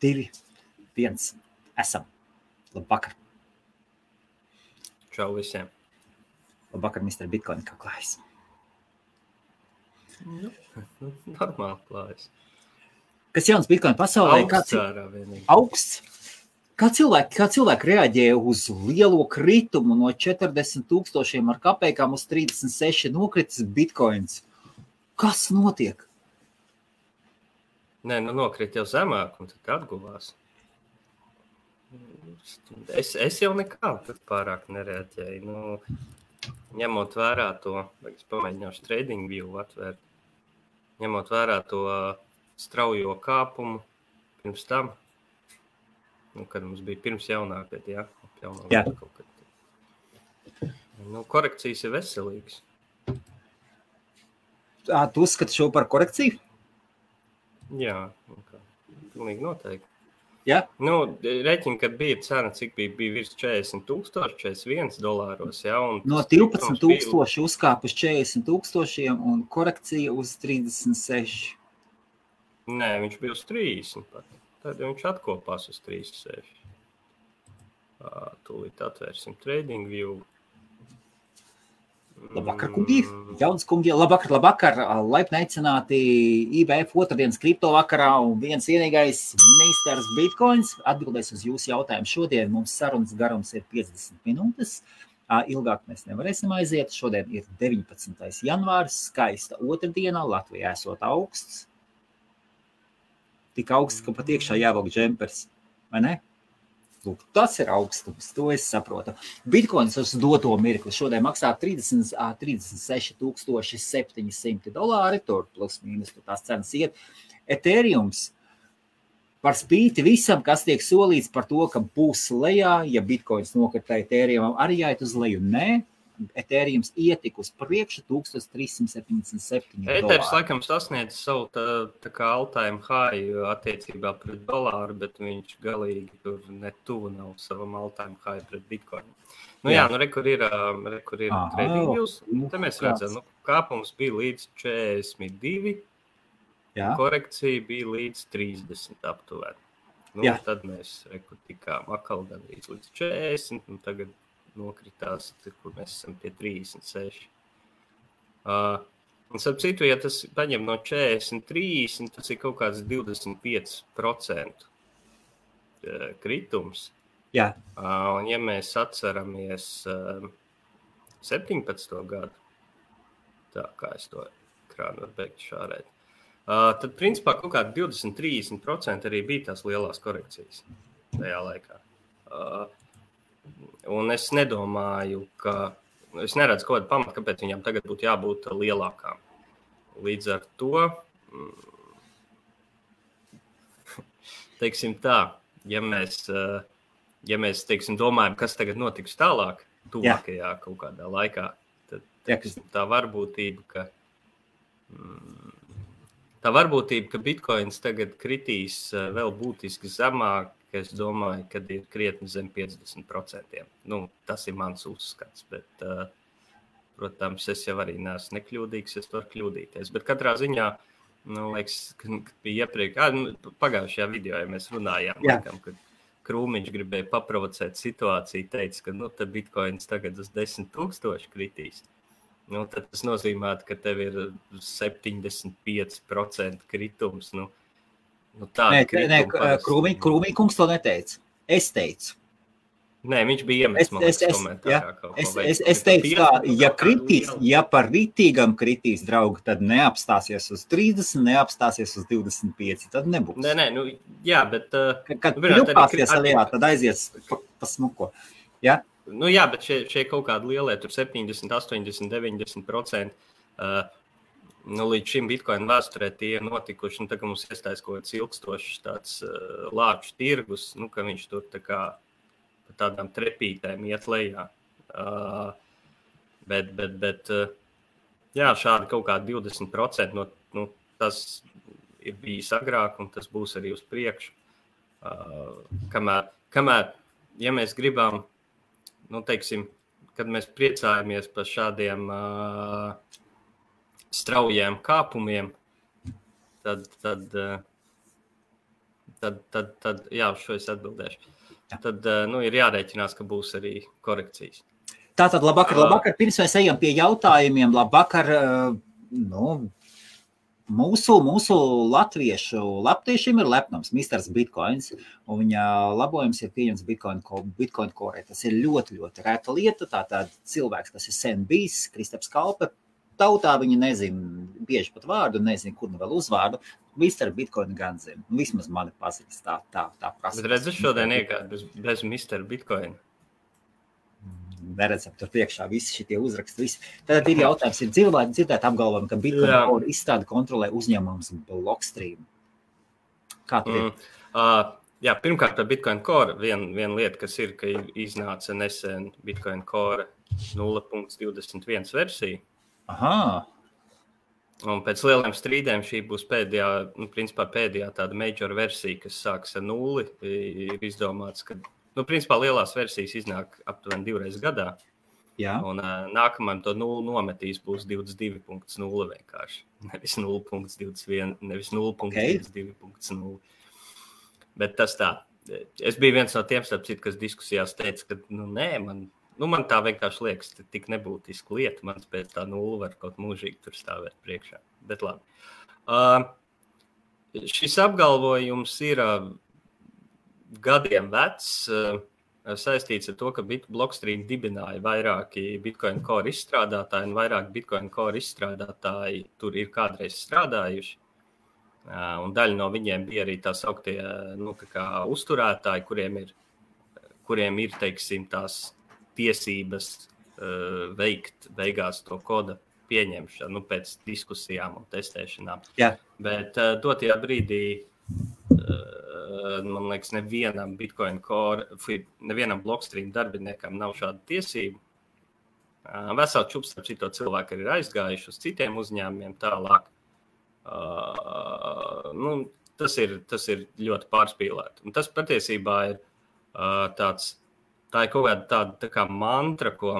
2, 1. Esam. Labvakar. Čau visiem. Labvakar, Mr. Bitcoin, kā klājas? Normāli klājas. Kas jauns Bitcoin pasaulē? Augsts ārā vienīgi. Augsts. Kā cilvēki reaģē uz lielo kritumu no 40,000 ar kapekām uz 36 nokritis Bitcoins? Kas notiek? Nē, nokrit jau zemāk un tad atguvās. Es jau nekādu pārāk nereaģēju. Ņemot vērā to, es pamēģināšu TradingView atvērt, ņemot vērā to straujo kāpumu pirms tam, kad mums bija pirms jaunākad, Jā. Kaut kad. Korekcijas ir veselīgas. Tu uzskati šo par korekciju? Jā, pilnīgi noteikti. Jā? Reķini, kad bija cena, cik bija virs 40,000, $41, jā. No 12,000 uzkāp uz 40,000 un korekcija uz 36. Nē, viņš bija uz 30 pat. Tad viņš atkopās uz 36. Tūlīt atvērsim TradingView. Labvakar, kungi! Jauns kungi! Labvakar! Laipni aicināti IBF otrdienas kripto vakarā un viens vienīgais meistars Bitcoins atbildēs uz jūsu jautājumu. Šodien mums sarunas garums ir 50 minūtes. Ilgāk mēs nevarēsim aiziet. Šodien ir 19. janvārs, skaista otrdiena, Latvijā esot augsts. Tik augsts, ka pat iekšā jāvelk džempers, vai ne? Lūk, tas ir augstums, to es saprotu. Bitcoins uz doto mirkli šodien maksā $36,700, tur plus mīnus, tur tās cenas iet. Ethereums par spīti visam, kas tiek solīts par to, ka būs lejā, ja Bitcoins nokritē Ethereumam, arī jāiet uz leju. Nē, Ethereums ietika uz priekšu $1,377. Ethers laikam sasniedz savu tā kā all-time high attiecībā pret dolāru, bet viņš galīgi tur netuvu nav savam all-time high pret Bitcoin. Kur ir TradingViews. Te mēs redzam, kāpums bija līdz 42, korekcija bija līdz 30 aptuveni. Tad mēs tikām atkal gandrīz līdz 40, un tagad nokritās, kur mēs esam pie 36. Un starp citu, ja tas paņem no 40, 30, tas ir kaut kāds 25% kritums. Jā. Un ja mēs atceramies 17. gadu, tā kā es to ekrānu varu beigt šārēt, tad principā kaut kādi 20-30% arī bija tās lielās korekcijas tajā laikā. Un es nedomāju, es neredzu kaut kādu pamatu, kāpēc viņām tagad būtu jābūt lielākām. Līdz ar to, teiksim tā, ja mēs teiksim, domājam, kas tagad notiks tālāk, tuvākajā kaut kādā laikā, tad tā varbūtība, ka Bitcoins tagad kritīs vēl būtiski zemāk, es domāju, kad ir krietni zem 50%. Tas ir mans uzskats, bet, protams, es jau arī neesmu nekļūdīgs, es varu kļūdīties. Bet katrā ziņā, liekas, kad bija pagājušajā video, ja mēs runājām, laikam, kad Krūmiņš gribēja paprovocēt situāciju, teica, ka tad Bitcoins tagad uz 10,000 kritīs. Tad tas nozīmē, ka tev ir 75% kritums, Krūmīkungs to neteica. Es teicu. Nē, viņš bija iemetis komentārā. Es teicu tā, ja par ritīgam kritīs, draugi, tad neapstāsies uz 30, neapstāsies uz 25, tad nebūs. Nē, jā, bet... Kad pļupāsies alijā, tad aizies pa smuko. Jā? Bet šie kaut kādi lielie, tur 70, 80, 90%, līdz šim Bitcoin vēsturē tie ir notikuši, tā kā mums iestājas kaut kāds ilgstošs tāds lāču tirgus, ka viņš tur tā kā pa tādām trepītēm iet lejā. Bet šādi kaut kādi 20%, tas ir bijis agrāk un tas būs arī uz priekšu. Kamēr, ja mēs gribam, teiksim, kad mēs priecājamies par šādiem straujiem kāpumiem, tad tad jā, uz šo es atbildēšu. Tad ir jārēķinās, ka būs arī korekcijas. Tātad, labvakar. Pirms mēs ejam pie jautājumiem, labvakar, mūsu latviešu latviešiem ir lepnums, Misters Bitcoins, un viņa labojums ir pieņems Bitcoin Core. Tas ir ļoti, ļoti reta lieta, tātad cilvēks, kas ir sen bijis, Kristaps Kalpe, tautā viņi nezina, bieži pat vārdu, nezina, kur nu vēl uzvārdu, Mr. Bitcoin gan zina, vismaz mani pazīst, tā prasa. Bet redzi šodien iegāju bez Mr. Bitcoin. Neredzam, tur priekšā visi šitie uzraksti, visi. Tad ir jautājums, ir dzirdēt apgalvojumu, ka Bitcoin Core izstrādi kontrolē uzņēmums Blockstream. Kā tur ir? Jā, pirmkārt par Bitcoin Core viena lieta, kas ir, ka iznāca nesen Bitcoin Core 0.21 versija. Aha. Un pēc lieliem strīdiem šī būs pēdējā tāda major versija, kas sāks ar 0. Ir izdomāts, ka principā lielās versijas iznāk aptuveni 2 reizes gadā. Jā. Un nākamajam to 0 nometīs būs 22.0 vienkārši. Nevis 0.21, nevis 0.22.0. Bet tas tā. Es biju viens no tiem, kas diskusijās teica, ka man tā vienkārši liekas, ka tik nebūtiska lieta. Man pēc tā 0 var kaut mūžīgi tur stāvēt priekšā. Bet labi. Šis apgalvojums ir gadiem vecs, saistīts ar to, ka Blockstream dibināja vairāki Bitcoin Core izstrādātāji, un vairāk Bitcoin Core izstrādātāji tur ir kādreiz strādājuši. Un daļa no viņiem bija arī tā sauktie uzturētāji, kuriem ir, teiksim, tās tiesības veikt beigās to koda pieņemšanu pēc diskusijām un testēšanām. Jā. Bet dotajā brīdī, man liekas, nevienam Bitcoin Core, nevienam Blockstream darbiniekam nav šāda tiesība. Veseli čups ar cito cilvēku ir aizgājuši uz citiem uzņēmumiem tālāk. Tas ir ļoti pārspīlēti. Un tas patiesībā ir tā ir kaut kāda tā kā mantra, ko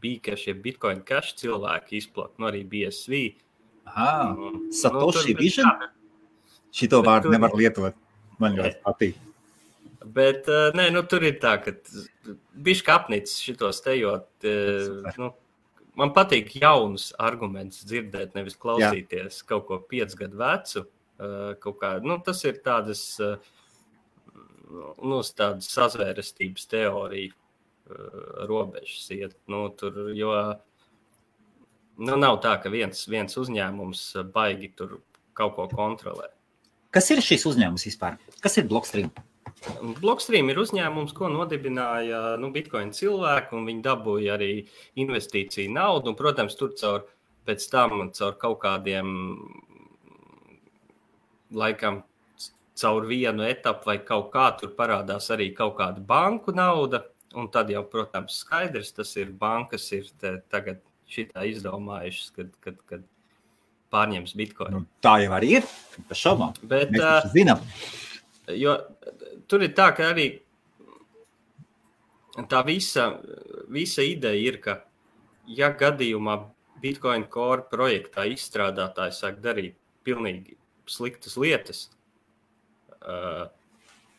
bija, ka šie Bitcoin Cash cilvēki izplata, arī BSV. Satoshi Vision? Šito vārdu nevar lietot. Man ļoti patīk. Bet, tur ir tā, ka bišķi apnicis šitos tejot. Man patīk jaunus argumentus dzirdēt, nevis klausīties kaut ko 5 gadu vecu. Tas ir tādas sazvērestības teorija robežas iet. Nav tā, ka viens uzņēmums baigi tur kaut ko kontrolē. Kas ir šis uzņēmums vispār? Kas ir Blockstream? Blockstream ir uzņēmums, ko nodibināja Bitcoin cilvēki, un viņi dabūja arī investīciju naudu. Un, protams, tur pēc tam caur kaut kādiem, laikam, caur vienu etapu vai kaut kā tur parādās arī kaut kāda banku nauda. Un tad jau, protams, skaidrs, tas ir bankas ir tagad šitā izdomājušas, kad pārņems Bitcoin. Tā jau arī ir, bez šaubām. Bet, mēs taču zinām. Jo tur ir tā, ka arī tā visa ideja ir, ka ja gadījumā Bitcoin Core projektā izstrādātāji sāk darīt pilnīgi sliktas lietas,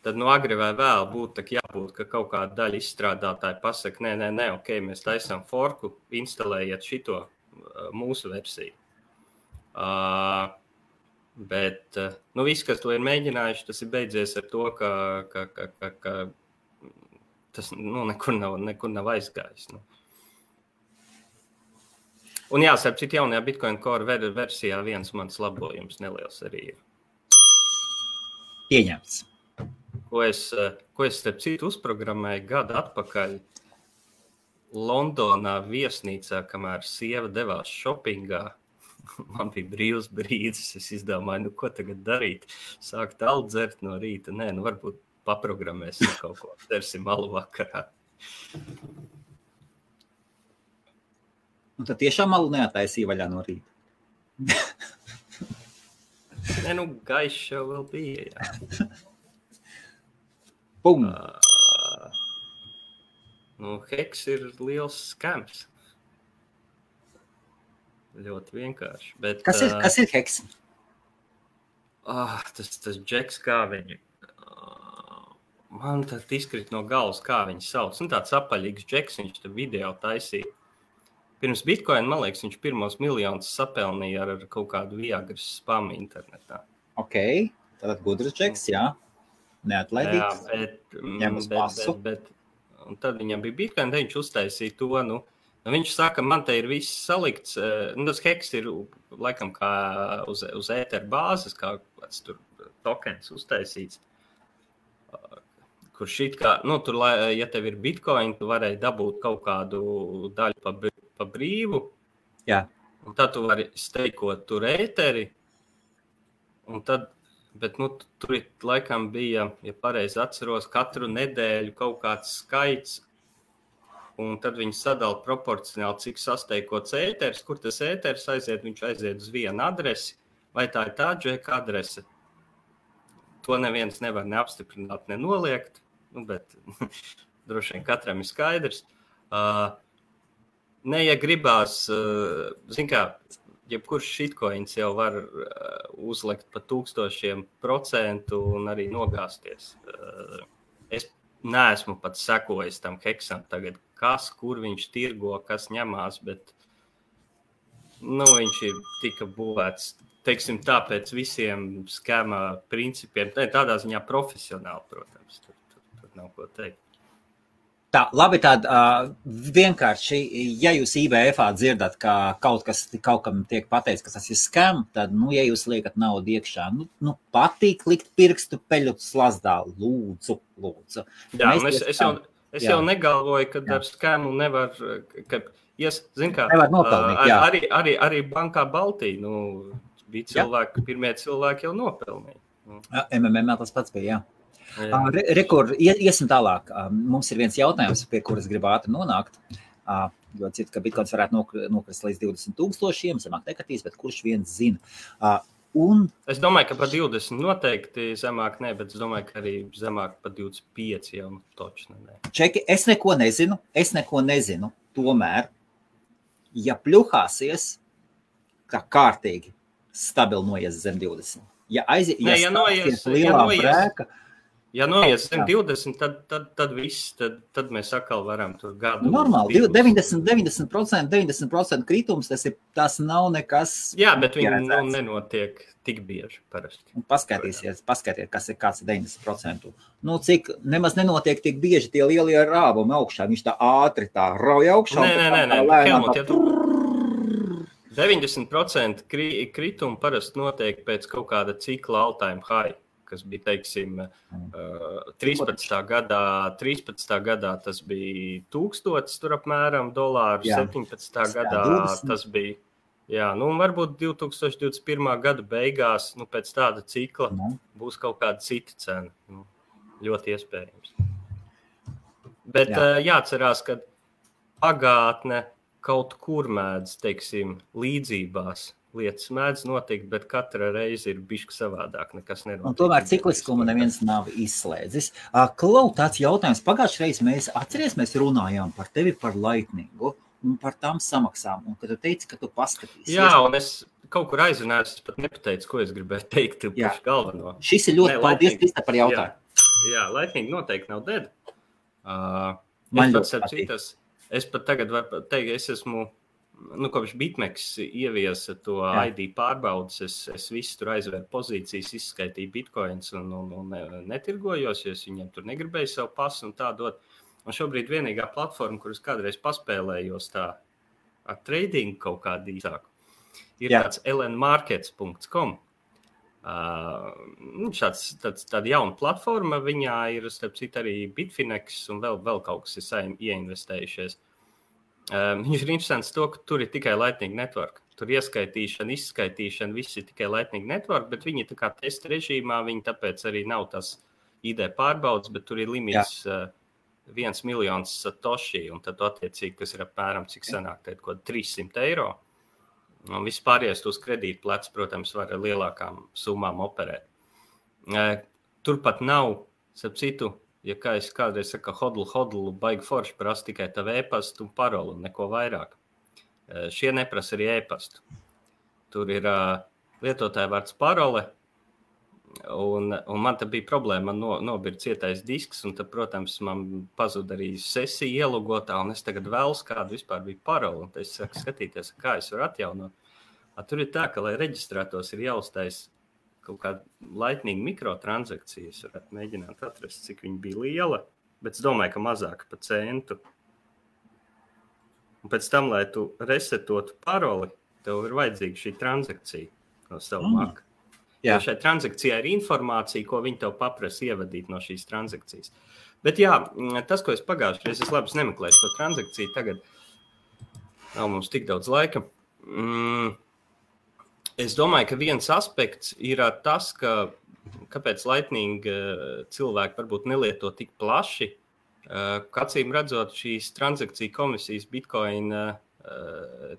tad agri vai vēl būtu jābūt, ka kaut kāda daļa izstrādātāji pasaka, nē, ok, mēs taisām forku, instalējiet šito mūsu versiju. Bet viss, kas to ir mēģinājuši, tas ir beidzies ar to, ka tas nekur nav aizgājis. Un jāsaka, cik jaunajā Bitcoin Core versijā viens mans labojums neliels arī ir. Pieņemts. Ko es starp citu uzprogrammēju gadu atpakaļ Londonā viesnīcā, kamēr sieva devās šopingā. Man bija brīvs brīdis, es izdomāju, ko tagad darīt. Sākt aldzert no rīta. Nē, varbūt paprogrammēsim kaut ko. Dersim malu vakarā. Un tad tiešām malu neataisīja vaļā no rīta. Nē, gaišs jau vēl bija, jā. Bum! Heks ir liels skams. Ļoti vienkārši. Bet, kas ir heks? Tas Džeks, kā viņi... Man tad izkrīt no galvas, kā viņi sauc. Tāds apaļīgs Džeks, viņš tur video taisīja. Pirms Bitcoin, man liekas, viņš pirmos miljonus sapelnīja ar kaut kādu viagras spamu internetā. Ok, tātad gudrs Džeks, jā. Neatlaidīgs. Jā, bet un tad viņam bija Bitcoin, tad viņš uztaisīja to, viņš saka, man te ir viss salikts, tas heks ir laikam kā uz ēteru bāzes, kā kāds tur tokens uztaisīts, kur šit kā, tur, ja tev ir Bitcoin, tu varēji dabūt kaut kādu daļu pa brīvu, jā. Un tad tu vari steikot tur ēteri, un tad, bet tur laikam bija, ja pareizi atceros, katru nedēļu kaut kāds skaits, un tad viņi sadala proporcionāli, cik sasteikots ēteris, kur tas ēteris aiziet, viņš aiziet uz vienu adresi, vai tā ir tā Džeka adrese. To neviens nevar neapstiprināt, nenoliegt, bet droši vien katram ir skaidrs. Ja gribās, zin kā, jebkurš shitcoins jau var uzlikt pa 1000% un arī nogāzties. Es neesmu pat sekojis tam heksam tagad, kur viņš tirgo, kas ņemās, bet viņš ir tika būvēts, teiksim, tāpēc visiem skema principiem, tādā ziņā profesionāli, protams, tur nav ko teikt. Tā, labi, vienkārši, ja jūs IBF-ā dzirdat, ka kaut kam tiek pateicis, ka tas ir skam, tad, ja jūs liekat naudu iekšā, patīk likt pirkstu peļu slazdā, lūdzu. Jā, es jau negalvoju, ka ar skamu nevar, zin kā, nevar nopelnīt, jā. Arī bankā Baltija, bija cilvēki, pirmie cilvēki jau nopelnīja. MMM tas pats bija, jā. Rekur, iesim tālāk. Mums ir viens jautājums, pie kuras gribu ātri nonākt. Jo citu, ka Bitcoins varētu nokrist līdz 20,000, zemāk nekatīs, bet kurš viens zina. Es domāju, ka par 20 noteikti zemāk ne, bet es domāju, ka arī zemāk par 25 jau točni ne. Čeki, es neko nezinu. Tomēr, ja pļuhāsies, kā kārtīgi stabili noies zem 20. Ja noies zem 20, tad viss, tad mēs atkal varam tur gadu. Normāli, 90% kritums, tas nav nekas. Jā, bet viņi nenotiek tik bieži parasti. Paskatīsies, kāds ir 90%. Cik nemaz nenotiek tik bieži tie lielie rāvumi augšā, viņš tā ātri tā rauj augšā. Nē. 90% kritumu parasti notiek pēc kaut kāda cikla all-time high, kas bija, teiksim, 13. gadā tas bija 1000 tur apmēram dolāru, 17. gadā tas bija, varbūt 2021. gada beigās, pēc tāda cikla būs kaut kāda cita cena, ļoti iespējams. Bet jāatcerās, ka pagātne kaut kur mēdz, teiksim, līdzībās lietas mēdz notikt, bet katra reize ir bišķi savādāk, nekas nenotiek. Un tomēr cikliskumu neviens nav izslēdzis. Klau, tāds jautājums. Pagājušajā reizē mēs runājām par tevi par Lightningu un par tām samaksām, un kad tu teici, ka tu paskatīsies. Jā, un es kaut kur aizrunājos, es pat nepateicu, ko es gribēju teikt pašu galveno. Šis ir ļoti paldies, Krista, par jautājumu. Jā, Lightning noteikti nav dead. Es pat tagad varu teikt, es esmu kopš BitMEX ieviesa to ID pārbaudas, es visu tur aizvēru pozīcijas, izskaitīju bitcoins un netirgojos, jo es viņiem tur negribēju savu pasu un tā dot. Un šobrīd vienīgā platforma, kuras kādreiz paspēlējos tā ar trading kaut kādu īsāku, ir tāds lnmarkets.com. Tāda jauna platforma, viņā ir, starp citu, arī Bitfinex un vēl kaut kas ir ieinvestējušies. Viņš ir interesants to, ka tur ir tikai Lightning Network. Tur ieskaitīšana, izskaitīšana, viss ir tikai Lightning Network, bet viņi tā kā testa režīmā, viņi tāpēc arī nav tas ID pārbaudas, bet tur ir limits 1 miljons satoshi, un tad attiecīgi, kas ir apmēram, cik sanāk, tad kaut 300 eiro. Un vispārējais uz kredītu plecs, protams, var ar lielākām summām operēt. Turpat nav, starp citu, ja kā es kādreiz saku, hodlu, baigi forši prasa tikai tavu e-pastu un parolu un neko vairāk. Šie neprasa arī e-pastu. Tur ir lietotāja vārds parole, Un man tā bija problēma, man nobira cietais disks, un tad, protams, man pazuda arī sesija ielogotā, un es tagad vēlos, kāda vispār bija parola, un es sāku skatīties, kā es varu atjaunot. Tur ir tā, ka, lai reģistrētos, ir jāuztais kaut kāda laitnīga mikrotransakcija. Es varētu mēģināt atrast, cik viņa bija liela, bet es domāju, ka mazāk pa centu. Un pēc tam, lai tu resetotu paroli, tev ir vajadzīga šī transakcija no savu Mac. Jo šai transakcijai ir informācija, ko viņi tev paprasa ievadīt no šīs transakcijas. Bet jā, tas, ko es pagājušajā reizē, es labi nemeklēju šo transakciju, tagad nav mums tik daudz laika. Es domāju, ka viens aspekts ir tas, kāpēc Lightning cilvēki varbūt nelieto tik plaši. Acīm redzot, šīs transakciju komisijas Bitcoin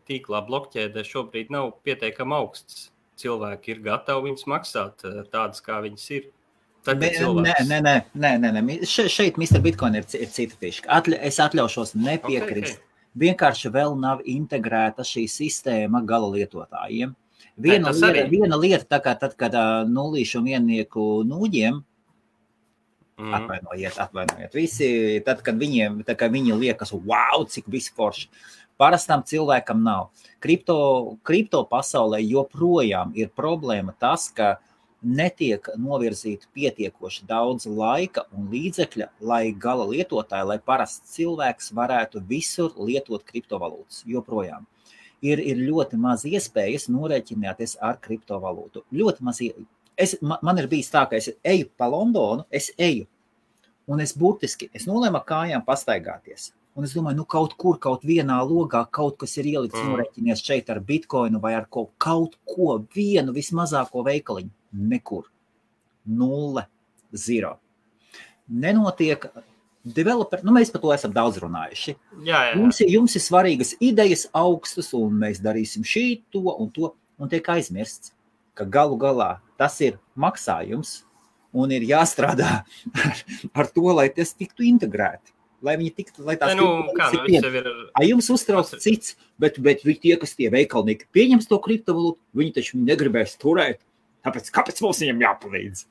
tīklā blokķēdē šobrīd nav pietiekami augsts. Cilvēki ir gatavi viņus maksāt tādas, kā viņas ir. Nē. Šeit Mr. Bitcoin ir cita fiška. Es atļaušos nepiekrist. Okay. Vienkārši vēl nav integrēta šī sistēma gala lietotājiem. Viena lieta, tā kā tad, kad nullīšu un viennieku nūģiem, atvainojiet, visi, tad, kad viņi liekas, wow, cik visi forši. Parastam cilvēkam nav. Kripto pasaulē joprojām ir problēma tas, ka netiek novirzīta pietiekoši daudz laika un līdzekļa, lai gala lietotāji, lai parasts cilvēks varētu visur lietot kriptovalūtas. Joprojām. Ir ļoti maz iespējas norēķināties ar kriptovalūtu. Ļoti maz. Man ir bijis tā, ka es eju pa Londonu, un es nolēmu kājām pastaigāties. Un es domāju, kaut vienā logā kaut kas ir ielikts norēķinies šeit ar Bitcoinu vai ar kaut ko, vienu vismazāko veikaliņu. Nekur. 0, 0. Nenotiek developeri, mēs par to esam daudz runājuši. Jā. Jums ir svarīgas idejas augstas, un mēs darīsim to, un tiek aizmirsts, ka galu galā tas ir maksājums, un ir jāstrādā ar to, lai tas tiktu integrēti. Lai viņi tiktu, lai tās jums uztrauc cits, bet tie, kas tie veikalnieki pieņems to kriptovalūtu, viņi taču negribēs turēt. Kāpēc mums viņam jāpalīdz?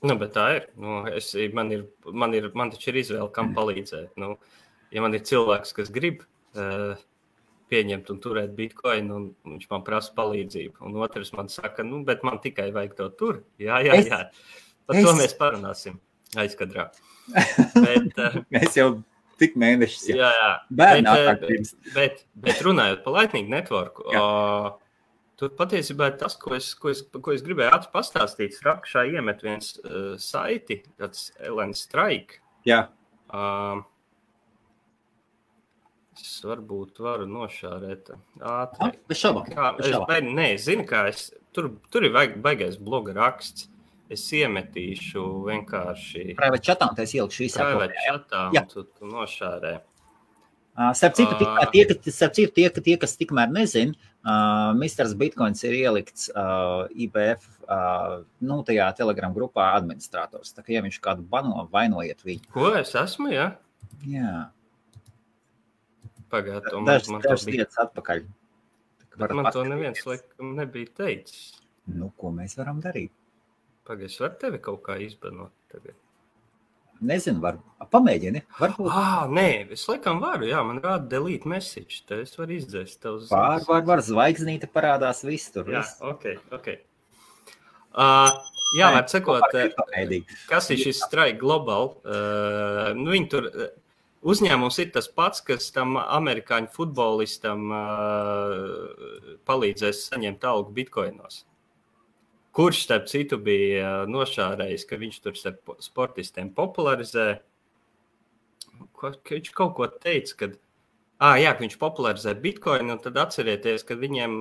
Bet tā ir. Man taču ir izvēle, kam palīdzēt. Ja man ir cilvēks, kas grib pieņemt un turēt Bitcoin, un viņš man prasa palīdzību, un otrs man saka, bet man tikai vajag to tur. Jā. Par to mēs parunāsim aizkadrā. Mēs jau tik mēnešus bet runājot par Lightning Network, tur patiesībā ir tas, ko es gribēju pastāstīt. Rakšā iemet viens saiti, tāds Ellen Strike. Jā. Es varbūt varu nošārēt ātri. Bez šaubām. Zini, kā tur ir baigais bloga raksts. Es iemetīšu vienkārši private chatā, un es ielikšu visā private chatā, un tu nošārē. Starp citu, tie, kas tikmēr nezin, Mr. Bitcoins ir ielikts IBF, tajā Telegram grupā administrators. Tā kā, ja viņš kādu bano, vainojiet viņu. Ko es esmu, jā? Jā. Pagād, dažs lietas atpakaļ. Bet man to neviens laikam nebija teicis. Ko mēs varam darīt? Pagaid, es varu tevi kaut kā izbanot tagad? Nezinu, pamēģini. Varbūt. Nē, es laikam varu, jā, man rāda delete message, te es varu izdzēst tev ziņas. Var, zvaigznīte parādās viss tur. Jā, ok. Var sakot, kas ir šis Strike Global? Viņi tur, uzņēmums ir tas pats, kas tam amerikāņu futbolistam palīdzēs saņemt algu bitkoinos. Kurš, starp citu, bija nošārējis, ka viņš tur starp sportistiem popularizē. Viņš kaut ko teica, ka viņš popularizē Bitcoin, un tad atcerieties, ka viņiem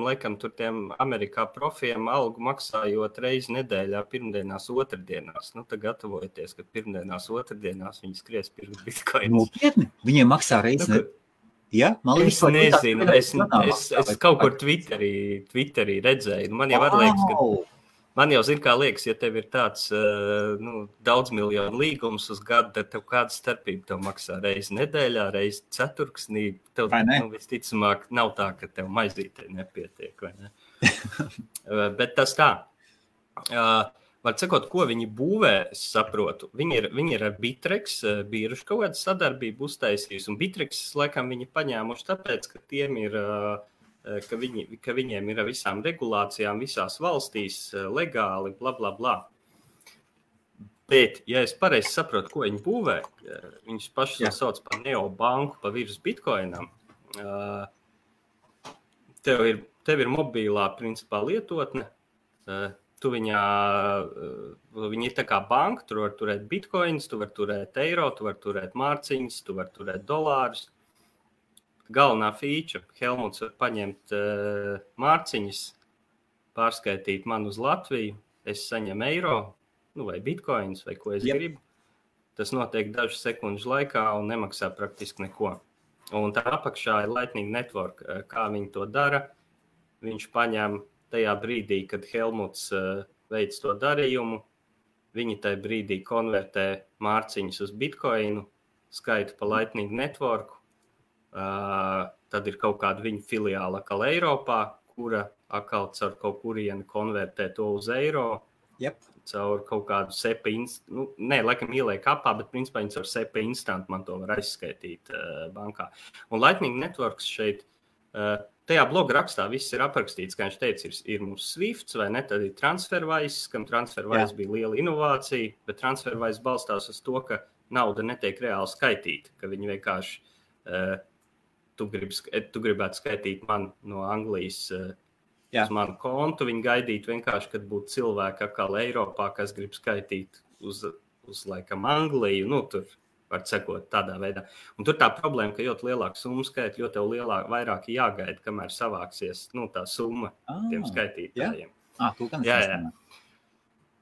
laikam tur tiem Amerikā profiem algu maksājot reizi nedēļā, pirmdienās, otrdienās. Tad gatavojieties, ka pirmdienās, otrdienās viņi skries pirkt Bitcoin. Nopietni? Viņiem maksā reizi nedēļā? Ja? Es nezinu, es kaut kur Twitterī redzēju. Man jau zin, kā liekas, ja tev ir tāds daudz miljonu līgums uz gadu, tad tev kāda starpība tev maksā reizi nedēļā, reizi ceturksnī. Tev visticamāk nav tā, ka tev maizītē nepietiek, vai ne? Bet tas tā. Var sakot, ko viņi būvē, es saprotu. Viņi ir ar Bittrex biržu kaut kādu sadarbību uztaisījusi, un Bittrex laikam viņi paņēmuši tāpēc, ka tiem ir, ka viņiem ir visām regulācijām visās valstīs legāli, bla, bla, bla. Bet, ja es pareizi saprotu, ko viņi būvē, viņus paši sauc par neobanku pa virs bitcoinam, tev ir mobilā principā lietotne, viņa ir tā kā banka, tu var turēt bitcoins, tu var turēt eiro, tu var turēt mārciņas, tu var turēt dolārus. Galvenā feature, Helmuts var paņemt mārciņas, pārskaitīt man uz Latviju, es saņemu eiro, vai bitcoins, vai ko es gribu. Tas notiek dažu sekundžu laikā un nemaksā praktiski neko. Un tā apakšā ir Lightning Network. Kā viņi to dara? Viņš paņem tajā brīdī, kad Helmuts veic to darījumu, viņi tajā brīdī konvertē mārciņas uz bitcoinu, skaitu pa Lightning Network, tad ir kaut kāda viņa filiāla atkal Eiropā, kura atkal caur kaut kurieni konvertē to uz eiro, caur kaut kādu SEPA laikam ieliek apā, bet principā viņi caur SEPA instant man to var aizskaitīt bankā. Un Lightning Networks šeit tajā bloga rakstā viss ir aprakstīts, kā viņš teica, ir mums Swifts, vai ne, tad ir TransferWise, kam TransferWise bija liela inovācija, bet TransferWise balstās uz to, ka nauda netiek reāli skaitīta, ka viņi vienkārši, tu gribētu skaitīt man no Anglijas uz manu kontu, viņi gaidītu vienkārši, kad būtu cilvēki atkal Eiropā, kas grib skaitīt uz laikam Angliju, tur var sekot tādā veidā. Un tur tā problēma, ka ļoti lielāka summa skaita, jo tev vairāk jāgaida, kamēr savāksies tā summa tiem skaitītājiem. Jā.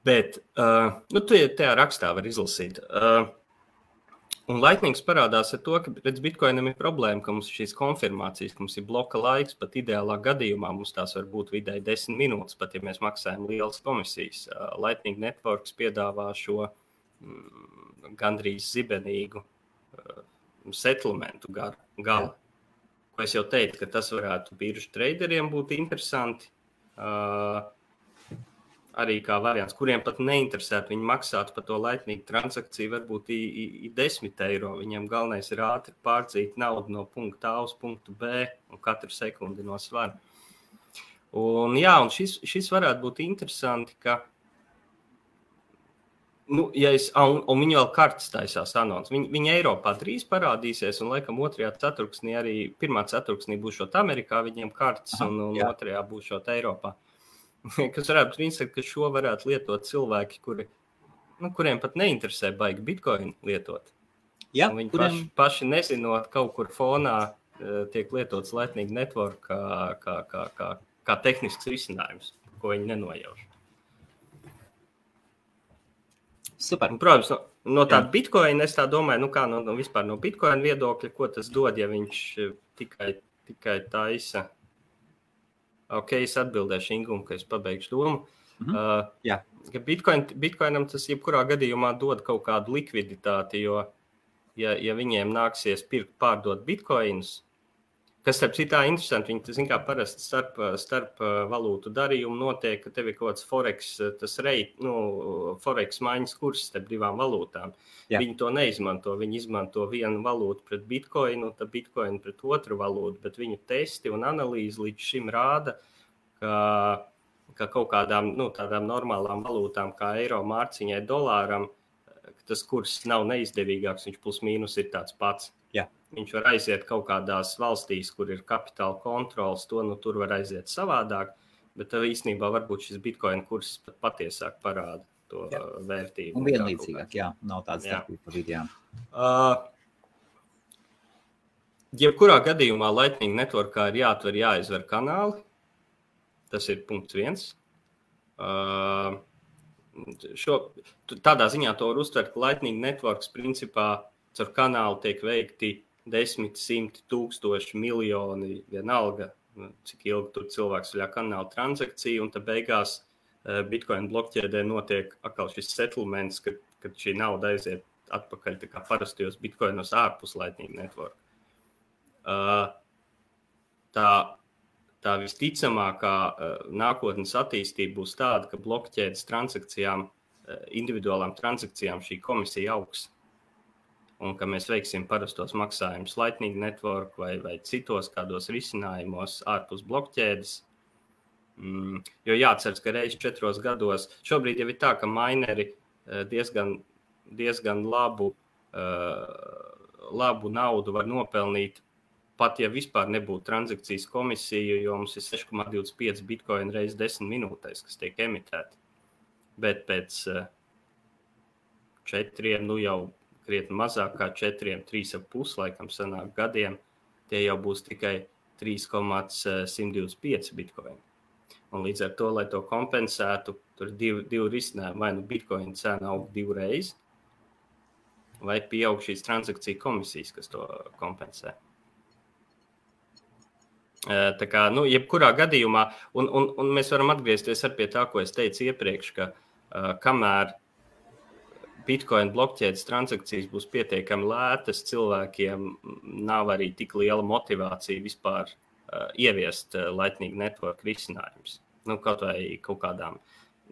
Bet, tu tajā rakstā var izlasīt. Un Lightnings parādās ar to, ka redz Bitcoinam ir problēma, ka mums šīs konfirmācijas, ka mums ir bloka laiks, pat ideālā gadījumā mums tās var būt vidēji 10 minūtes, pat ja mēs maksājam lielas komisijas. Lightning Networks piedāvā šo gandrīz zibenīgu settlementu gala. Ko es jau teicu, ka tas varētu biržu traderiem būt interesanti. Arī kā variants, kuriem pat neinteresētu, viņi maksātu par to Lightning transakciju varbūt 10 eiro. Viņiem galvenais ir ātri pārdzīt naudu no punkta A uz punktu B un katru sekundi no svara. Un šis varētu būt interesanti, ka un viņi vēl kartes taisās anons. Viņi Eiropā drīz parādīsies, un laikam 2. ceturksnī arī 1. ceturksnī būšot Amerikā viņiem kartes, un 2. būšot Eiropā. Kas varētu būt, ka šo varētu lietot cilvēki, kuriem pat neinteresē baigi Bitcoin lietot. Viņi paši nezinot, kaut kur fonā tiek lietots Lightning Network kā tehnisks risinājums, ko viņi nenojauš. Super. Un, protams, no tāda Bitcoin, es tā domāju, vispār no Bitcoin viedokļa, ko tas dod, ja viņš tikai taisa. Ok, es atbildēšu Ingumu, ka es pabeigšu domu. Ka Bitcoinam tas jebkurā gadījumā dod kaut kādu likviditāti, jo, ja viņiem nāksies pārdot Bitcoinus, kas starp citā interesanti, viņi, zin kā parasti starp valūtu darījumu notiek, ka tev ir kaut kāds Forex maiņas kurs starp divām valūtām. Viņi to neizmanto, viņi izmanto vienu valūtu pret Bitcoinu, tad Bitcoinu pret otru valūtu, bet viņu testi un analīze līdz šim rāda, ka kaut kādām tādām normālām valūtām kā eiro, mārciņai, dolāram, tas kurs nav neizdevīgāks, viņš plus mīnus ir tāds pats. Viņš var aiziet kaut kādās valstīs, kur ir kapitāla kontrols, tur var aiziet savādāk, bet īstenībā varbūt šis Bitcoin kurs patiesāk parāda to vērtību. Un vienlīdzīgāk, nav tāds starpība pa vidējām. Jebkurā gadījumā Lightning Networkā ir jāizver kanāli, tas ir punkts 1. Tādā ziņā to var uztvert, ka Lightning Networks principā caur kanālu tiek veikti 10, 100, 1000, miljoni, vienalga, cik ilgi tur cilvēks vaļā kanāla transakcija, un tad beigās Bitcoin blokķēdē notiek atkal šis settlements, kad šī nauda aiziet atpakaļ tā kā parastajos Bitcoinos ārpus Lightning Network. tā visticamākā nākotnes attīstība būs tāda, ka blokķēdes transakcijām, individuālām transakcijām šī komisija augs. Un ka mēs veiksim parastos maksājumus Lightning Network vai citos kādos risinājumos ārpus blokķēdes. Jo jāatceras, ka reiz 4 gados, šobrīd jau ir tā, ka mineri diezgan labu naudu var nopelnīt, pat ja vispār nebūtu transakcijas komisija, jo mums ir 6,25 bitcoin reiz 10 minūtēs, kas tiek emitēti. Bet pēc 4, nu jau krietni mazāk kā 4, 3,5 laikam sanāk gadiem, tie jau būs tikai 3,125 bitcoin. Un līdz ar to, lai to kompensētu, tur ir divi risinājumi. Vai nu bitcoin cena aug 2 reizes, vai pieaug šīs transakciju komisijas, kas to kompensē. Tā kā, nu, jebkurā gadījumā, un mēs varam atgriezties ar pie tā, ko es teicu iepriekš, ka kamēr Bitcoin blokķēdes transakcijas būs pietiekami lētas, cilvēkiem nav arī tik liela motivācija vispār ieviest Lightning Network risinājumus. Nu, kaut vai kaut kādām,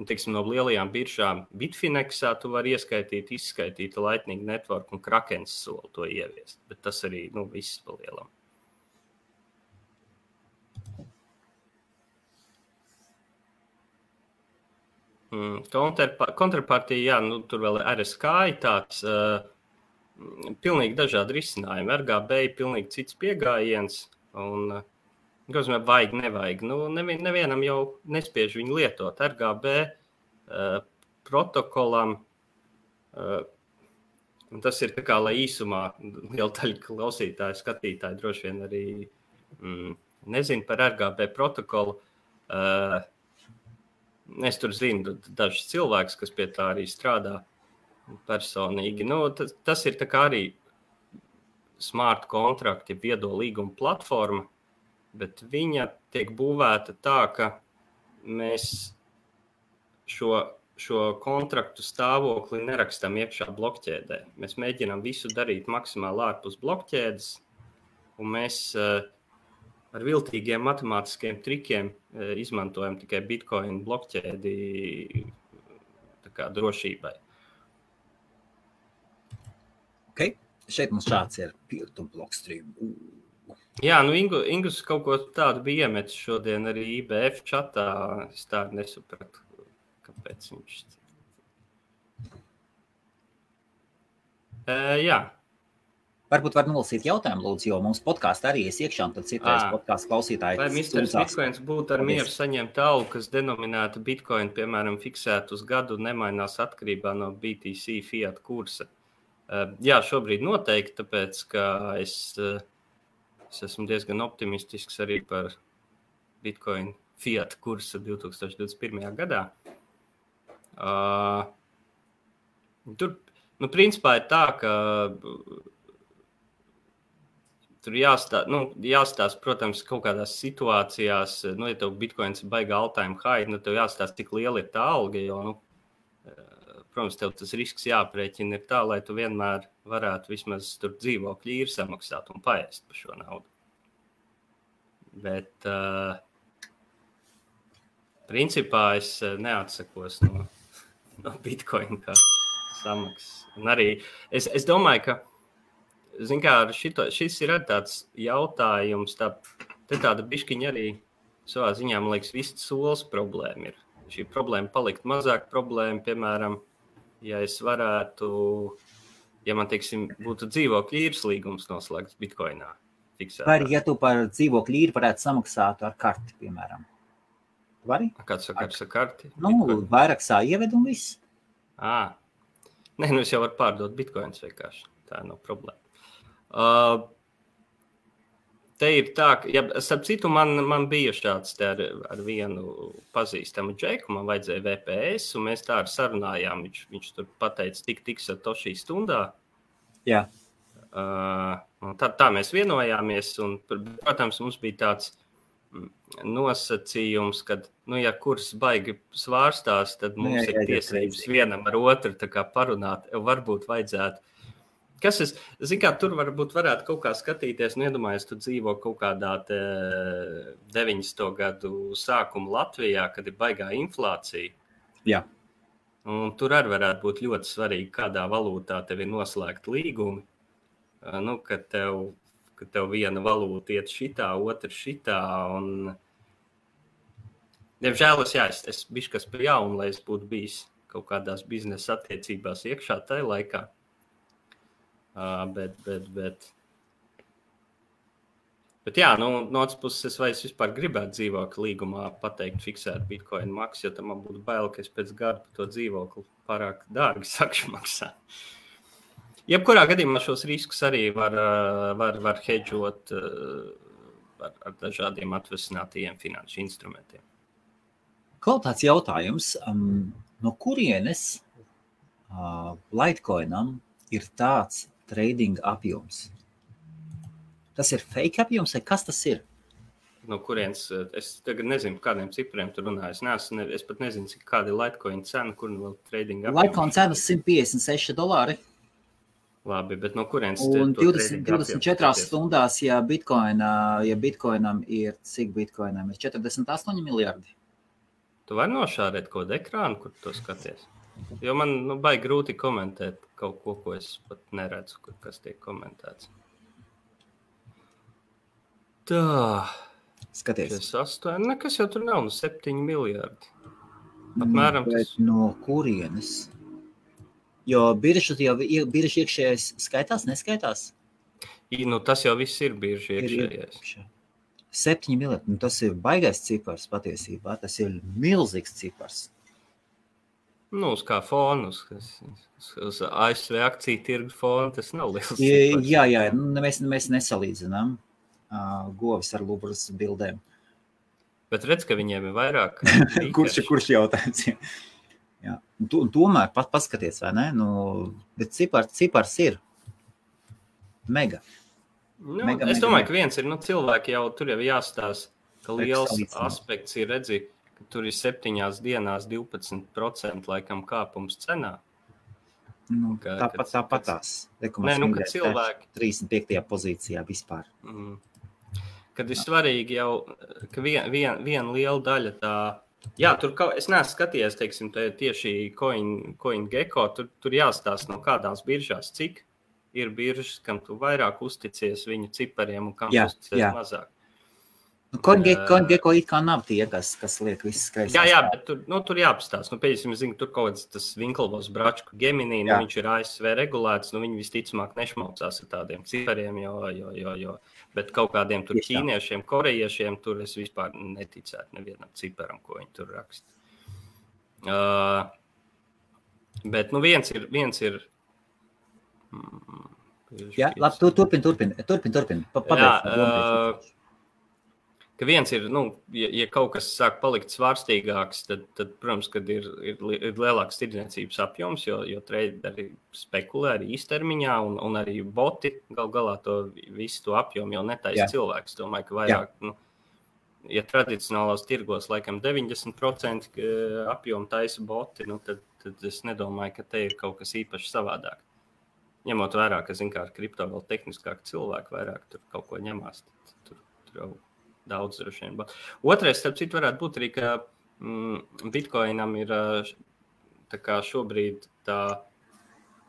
teiksim, no lielajām biržām Bitfinexā tu vari izskaitīt Lightning Network un Krakens soli to ieviest, bet tas arī, nu, viss pa lielam. Kontrapartija, jā, nu, tur vēl RSK ir tāds pilnīgi dažādi risinājumi. RGB ir pilnīgi cits pieejams, un vajag, nevajag. Nu, nevienam jau nespiež viņu lietot. RGB protokolam, tas ir tā kā, lai īsumā liela daļa klausītāju, skatītāju droši vien arī nezinu par RGB protokolu. Es tur zinu dažus cilvēkus, kas pie tā arī strādā personīgi. Nu, tas ir tā kā arī smart kontrakti, viedo līguma platforma, bet viņa tiek būvēta tā, ka mēs šo kontraktu stāvokli nerakstam iekšā blokķēdē. Mēs mēģinām visu darīt maksimāli ārpus blokķēdes, un mēs ar viltīgiem matemātiskiem trikiem izmantojam tikai Bitcoin blokķēdi tā kā drošībai. Ok, šeit mums šāds ir peer-to blockstream. Jā, nu Ingus kaut ko tādu bija iemetis šodien arī IBF čatā. Es tādu nesapratu, kāpēc viņš... Jā. Varbūt var nolasīt jautājumu, lūdzu, jo mums podkāstā arī iekšā, un tad citreiz podkāstu klausītāji. Vai Mr. Bitcoins būtu ar mieru saņemt algu, kas denominēta Bitcoin, piemēram, fiksētu uz gadu, nemainās atkarībā no BTC fiat kursa? Jā, šobrīd noteikti, tāpēc, ka es esmu diezgan optimistisks arī par Bitcoin fiat kursu 2021. gadā. Tur, nu, principā ir tā, ka tur jāstāsta, protams, kaut kādās situācijās, nu, ja tev Bitcoins ir baigā all-time high, nu, tev jāstāsta, cik liela ir tā alga, jo, nu, protams, tev tas risks jāprēķina ir tā, lai tu vienmēr varētu vismaz tur dzīvokļu īri samaksāt un paēst par šo naudu. Bet, principā, es neatsakos no Bitcoin kā samaksas. Un arī, es domāju, ka zin kā, šis ir tāds jautājums, tāda biškiņa arī savā ziņā, man liekas, viss solis problēma ir. Šī problēma palikt mazāk problēma, piemēram, ja es varētu, ja man, teiksim, būtu dzīvokļu īres līgums noslēgts Bitcoinā fiksētā. Vai ja tu par dzīvokļu īri varētu samaksāt ar karti, piemēram? Vari? Kāds sakars ar karti? Nu, vairāk ieved un viss. Nē, nu es jau varu pārdot Bitcoins vienkārši. Tā nav problēma. Te ir tā, ka, ja, starp citu, man bija šāds te ar vienu pazīstamu džeku, man vajadzēja VPS, un mēs tā arī sarunājām, viņš tur pateica tik satoshi stundā. Jā. Tā mēs vienojāmies, un, protams, mums bija tāds nosacījums, kad, nu, ja kurs baigi svārstās, tad mums ir tiesības vienam ar otru tā kā parunāt, varbūt vajadzētu Tur varētu kaut kā skatīties, iedomājies, tu dzīvo kaut kādā 90. gadu sākuma Latvijā, kad ir baigā inflācija. Jā. Un tur arī varētu būt ļoti svarīgi, kādā valūtā tev ir noslēgta līgumi. Kad tev viena valūta iet šitā, otra šitā. Un... Diemžēl es bišķi kas pa jaunu, lai es būtu bijis kaut kādās biznesa attiecībās iekšā tajā laikā. Bet jā, no otras puses, vai es vispār gribētu dzīvokli līgumā pateikt fiksēt Bitcoin maksu, jo tam man būtu bail, ka es pēc gada par to dzīvokli pārāk dārgi sakšu maksāt. Jebkurā gadījumā šos riskus arī var hedžot ar dažādiem atvesinātajiem finanšu instrumentiem. Kaut tāds jautājums, no kurienes Litecoinam ir tāds trading apjoms? Tas ir fake apjoms, vai kas tas ir? No kurienes, es tagad nezinu, kādiem cipriem tu runā. Es pat nezinu, kāda ir Litecoin cena, kur vēl trading apjoms. Litecoin cenas $156. Labi, bet no kurienes? Un 24 stundās, ja Bitcoinam ir, cik Bitcoinam ir? 48 miljardi. Tu vari nošārēt kaut kādu ekrānu, kur to skaties? Jo man baigi grūti komentēt kaut ko es pat neredzu, kas tiek komentēts. Tā. Skaties. 8, nekas jau tur nav, 7 miljardi. Apmēram bet tas. No kurienes? Jo birža iekšējais skaitās, neskaitās? Tas jau viss ir birža iekšējais. 7 miljardi, tas ir baigais cipars patiesībā, tas ir milzīgs cipars. Uz kā fonu, uz ASV akciju tirgu fonu, tas nav liels cipars. Jā, mēs nesalīdzinām govis ar lubras bildēm. Bet redz, ka viņiem ir vairāk. Kurš jautājums? Jā. Un tomēr paskaties, vai ne? Bet cipars ir mega. Es domāju, ka viens ir, cilvēki jau tur jau jāstās, ka liels aspekts ir redzi, ka tur ir 7 dienās 12% laikam kāpums cenā. Tāpatās. Ka cilvēki 35. pozīcijā vispār. Kad ir svarīgi jau, ka viena liela daļa tā... Jā, tur es neesmu skatījies, teiksim, tieši CoinGecko, tur jāstāsta no kādās biržās, cik ir biržas, kam tu vairāk uzticies viņu cipariem un kam uzticies mazāk. CoinGecko it kā nav tie, kas liek visas kreisās. Jā, bet tur jāpastāst. Pēdējais, es zinu, tur kaut kāds tas Winklevoss bračku Gemini, viņš ir ASV regulēts, viņi visticamāk nešmaucās ar tādiem cipariem, jo. Bet kaut kādiem tur ķīniešiem, korejiešiem, tur es vispār neticētu nevienam ciparam, ko viņi tur raksta. Bet viens ir Jā, labi, turpin. Ka viens ir, ja kaut kas sāk palikt svārstīgāks, tad protams, kad ir lielāks tirdzniecības apjoms, jo traderi spekulē arī īstermiņā un arī boti galā to visu to apjomu jau netaisa cilvēks. Domāju, ka vairāk, ja tradicionālās tirgos laikam 90% apjomu taisa boti, tad es nedomāju, ka te ir kaut kas īpaši savādāk. Ņemot vērā, ka, ar kripto vēl tehniskāk cilvēki vairāk tur kaut ko ņemās, tur jau daudz droši vien. Otrais, starp citu, varētu būt arī, ka Bitcoinam ir tā kā šobrīd tā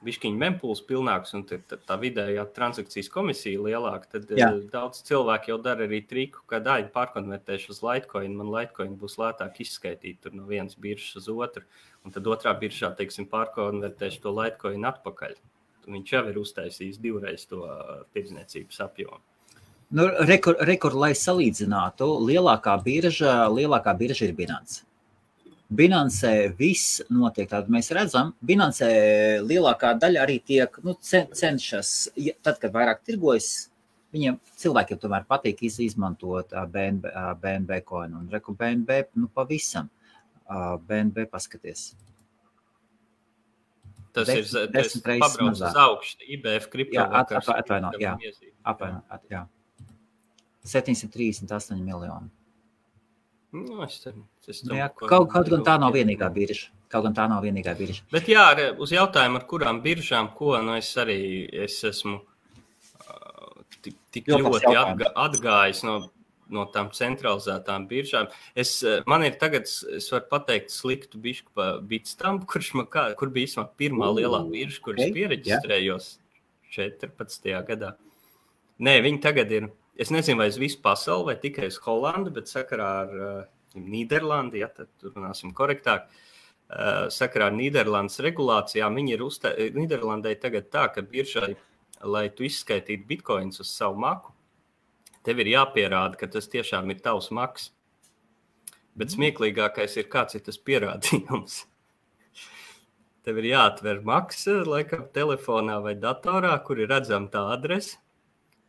bišķiņa mempuls pilnāks un tā vidējā transakcijas komisija lielāka, tad daudz cilvēki jau dara arī triku, ka pārkonvertēšu uz Litecoin, man Litecoin būs lētāk izskaitīt tur no vienas biržas uz otru, un tad otrā biržā, teiksim, pārkonvertēšu to Litecoin atpakaļ. Viņš jau ir uztaisījis 2 reiz to tirdzniecības apjomu. Rekord, lai salīdzinātu, lielākā birža ir Binance. Binance viss notiek, tātad mēs redzam, Binance lielākā daļa arī tiek, cenšas, tad, kad vairāk tirgojas, viņiem cilvēkiem tomēr patīk izmantot BNB coinu, un reku BNB, pavisam, BNB paskaties. Tas ir pabrauc uz augšu, IBF kriptovakars. Atvainot, jā. 738 miljoni. Es domāju, kaut gan tā nav vienīgā birža, Kaut gan tā nav vienīgā birža. Bet jā, uz jautājumu, ar kurām biržām, es esmu tik ļoti atgājis no tām centralizētām biržām. Man ir tagad, es varu pateikt sliktu bišku pa Bitstamp, kur bija īstenībā pirmā lielā birža, kur es piereģistrējos 14. gadā. Nē, viņi tagad ir, es nezinu, vai uz visu pasauli, vai tikai uz Holandu, bet sakarā ar Nīderlandi, ja tad runāsim korektāk, sakarā ar Nīderlandes regulācijām, viņi ir Nīderlandai tagad tā, ka biržai, lai tu izskaitītu bitcoins uz savu maku, tev ir jāpierāda, ka tas tiešām ir tavs maks. Bet smieklīgākais ir, kāds ir tas pierādījums. Tev ir jāatver maksa, laikam, telefonā vai datorā, kur ir redzama tā adrese,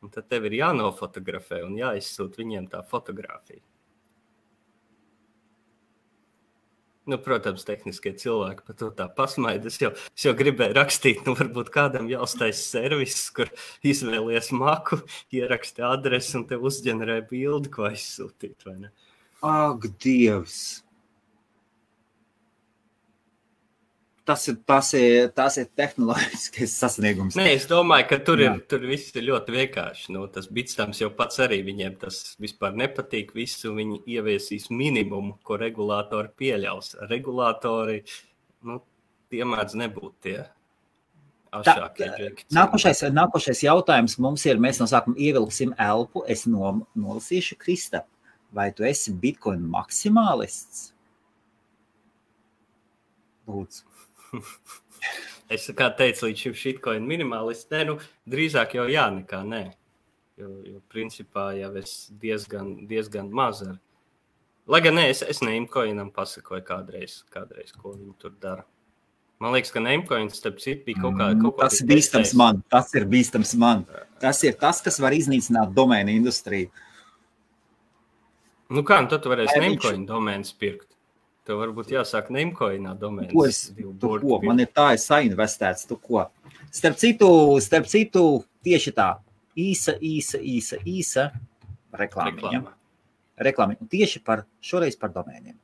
un tad tev ir jānofotografē un jāizsūt viņiem tā fotografija. Nu, protams, tehniskie cilvēki par to tā pasmaida. Es jau gribēju rakstīt, varbūt kādam jāuztais servis, kur izvēlies maku, ieraksti adresi un tev uzģenerē bildi, ko aizsūtīt, vai ne? Ak, Dievs! Tas ir tehnoloģiskais sasniegums. Nē, es domāju, ka tur viss ir ļoti vienkārši. Tas Bitstamps jau pats arī viņiem tas vispār nepatīk. Visu viņi ieviesīs minimumu, ko regulātori pieļaus. Regulātori, tie mēdz nebūt tie ašākie džeki. Nākošais jautājums mums ir, mēs no sākuma ievilksim elpu. Es nolasīšu, Krista, vai tu esi Bitcoin maksimālists? Lūdzu. Es kā teicu, līdz šim shitcoin minimalists, drīzāk jau jā, nekā nē. Jo principā jau es diezgan maz ar. Lai gan nē, es Namecoinam pasakoju kādreiz, ko viņi tur dara. Man liekas, ka Namecoins, starp citu, bija kaut kā tas ir bīstams man. Tas ir tas, kas var iznīcināt domēnu industriju. Tad tu varēsi Namecoin domēnas pirkt. Tev varbūt jāsāk Namecoinā domēnas. Tu ko? Man ir tā, es sainvestēts, tu ko? Starp citu, tieši tā, īsa reklāmiņa. Tieši šoreiz par domēniem.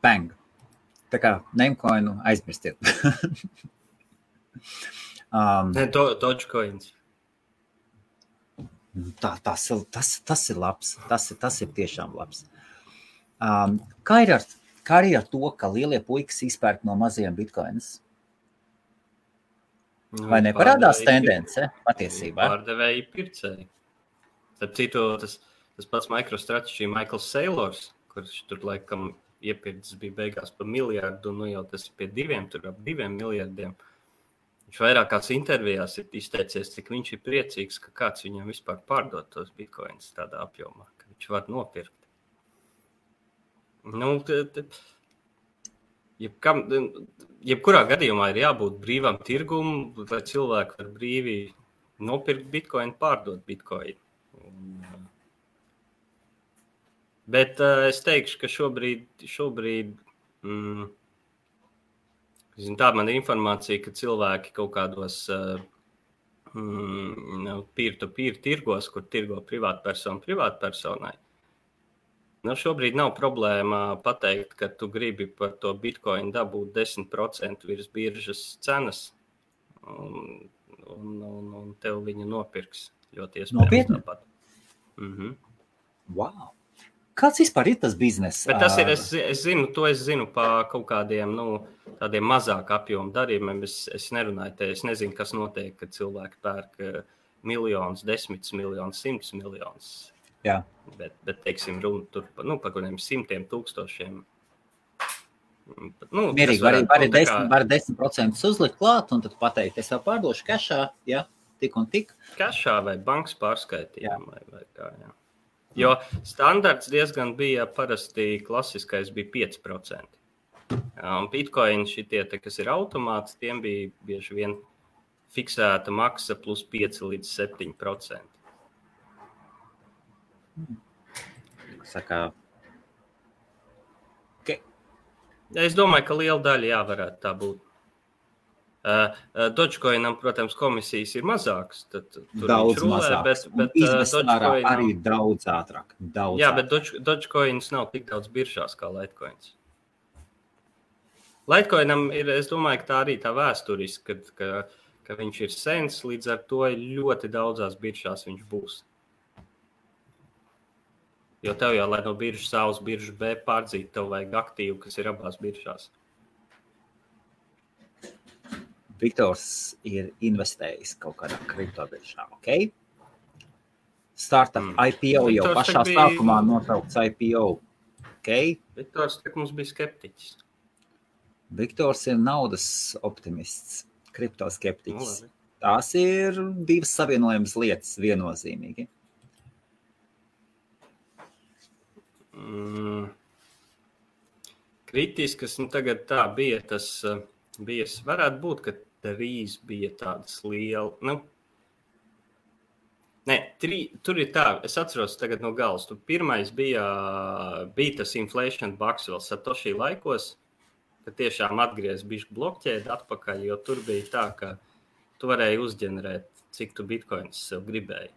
Bang. Tā kā Namecoinu aizmirstiet. Dogecoins. Tas ir labs. Tas ir tiešām labs. Kā ir ar to, ka lielie puikas izpērk no mazajiem bitcoinus? Vai neparādās tendence patiesībā? Pārdevēji pircēji. Starp citu, tas pats MicroStrategy Michaels Saylors, kurš tur laikam iepirkts bija beigās pa miljardu, jau tas ir pie 2 miljardiem. Viņš vairākās intervijās ir izteicies, cik viņš ir priecīgs, ka kāds viņam vispār pārdod tos bitcoins tādā apjomā, ka viņš var nopirkt. Jebkurā gadījumā ir jābūt brīvam tirgum, lai cilvēki var brīvi nopirkt bitcoin, pārdot bitcoin. Bet es teikšu, ka šobrīd tā man ir informācija, ka cilvēki kaut kādos peer-to-peer tirgos, kur tirgo privātpersona privātpersonai. Šobrīd nav problēma pateikt, ka tu gribi par to bitcoin dabūt 10% virs biržas cenas, un tev viņa nopirks ļoti iespējams. Nopietni? Tāpat. Wow! Kāds vispār ir tas bizness? Bet tas ir, es zinu pa kaut kādiem, tādiem mazāk apjomu darījumiem. Es nerunāju te, es nezinu, kas notiek, kad cilvēki pērk miljonus, 10 miljonus, 100 miljonus. Jā. Bet teiksim, runa tur par kādiem 100 000. Mierīgi, var 10% uzlikt klāt, un tad pateikt, es jau pārdošu kešā, ja, tik un tik. Kešā vai bankas pārskaitījumu vai kā, jā. Jo standarts diezgan bija, parasti klasiskais bija 5%. Un Bitcoin šitie, kas ir automāts, tiem bija bieži vien fiksēta maksa plus 5 līdz 7%. Saka, Es domāju, ka liela daļa varētu tā būt. Dogecoinam, protams, komisijas ir mazākas. Daudz mazākas. Bet Dogecoin arī daudz ātrāk. Bet Dogecoins nav tik daudz biržās kā Litecoins. Litecoinam ir, es domāju, ka tā arī tā vēsturiski, ka viņš ir sens, līdz ar to ļoti daudzās biržās viņš būs. Jo tev jau, lai no biržas A uz biržu B pārdzīt, tev vajag aktīvu, kas ir abās biržās. Viktors ir investējis kaut kādā kriptobiržā, ok? Startup IPO jau Viktors pašā sākumā notraukts IPO, ok? Viktors mums bija skeptiķis. Viktors ir naudas optimists, kriptoskeptiķis. Tās ir divas savienojamas lietas viennozīmīgi. Kritiskas, tagad tā bija, tas bija, varētu būt, ka drīz bija tādas liela, tur ir tā, es atceros tagad no galas, pirmais bija tas inflation bucks vēl Satoshi laikos, ka tiešām atgriez bišķi blokķēdi atpakaļ, jo tur bija tā, ka tu varēji uzģenerēt, cik tu bitcoins sev gribēji.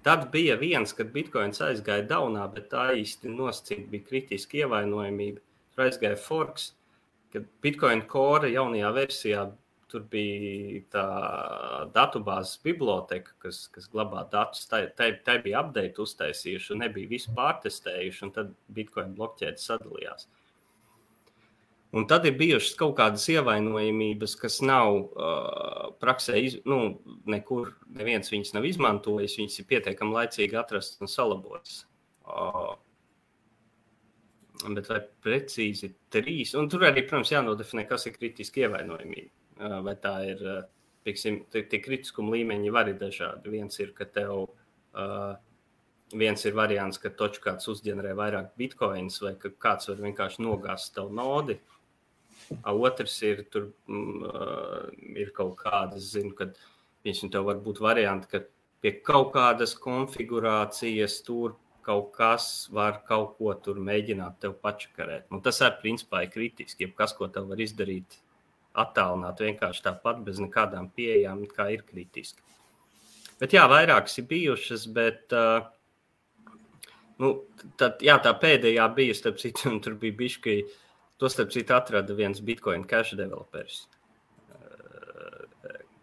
Tad bija viens, kad bitcoins aizgāja daunā, bet tā īsti nosacīt bija kritiski ievainojamība. Tur aizgāja forks, kad bitcoin core jaunajā versijā tur bija tā datubāzes biblioteka, kas glabā datus. Tai bija update uztaisījuši un nebija visu pārtestējuši, un tad bitcoin blokķēdes sadalījās. Un tad ir bijušas kaut kādas ievainojamības, kas nav praksē, nekur neviens viņas nav izmantojis, viņas ir pietiekami laicīgi atrasts un salabotas. Bet vai precīzi 3, un tur arī, protams, jānodefinē, kas ir kritiski ievainojamība. Vai tā ir, tie kritiskuma līmeņi var ir dažādi. Viens ir, ka viens ir variants, ka kāds uzģenerē vairāk bitcoins, vai ka kāds var vienkārši nogāzt tavu nodi. Otrs ir, tur ir kaut kādas, kad tev var būt varianti, ka pie kaut kādas konfigurācijas tur kaut kas var kaut ko tur mēģināt tev pačakarēt. Tas arī principā ir kritiski, kas, ko tev var izdarīt attālināt vienkārši tāpat bez nekādām pieejām, kā ir kritiski. Bet jā, vairākas ir bijušas, bet tā pēdējā bija, starp citu, un tur bija bišķi, to starp citu atrada viens Bitcoin Cash developers.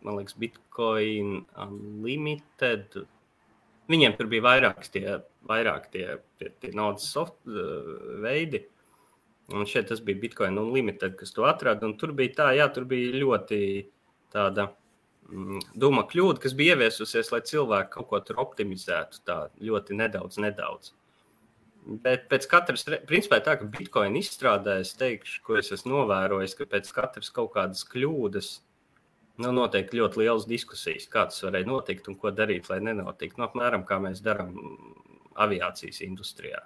Man liekas, Bitcoin Unlimited. Viņiem tur bija vairāk tie naudas veidi. Un šeit tas bija Bitcoin Unlimited, kas to atrada. Un tur bija tur bija ļoti tāda doma kļūda, kas bija ieviesusies, lai cilvēki kaut ko tur optimizētu tā ļoti nedaudz. Bet pēc katras, principā tā, ka Bitcoin izstrādē, es teikšu, ko es esmu novērojis, ka pēc katras kaut kādas kļūdas notiek ļoti lielas diskusijas, kā tas varēja notikt un ko darīt, lai nenotikt. Apmēram, kā mēs darām aviācijas industrijā.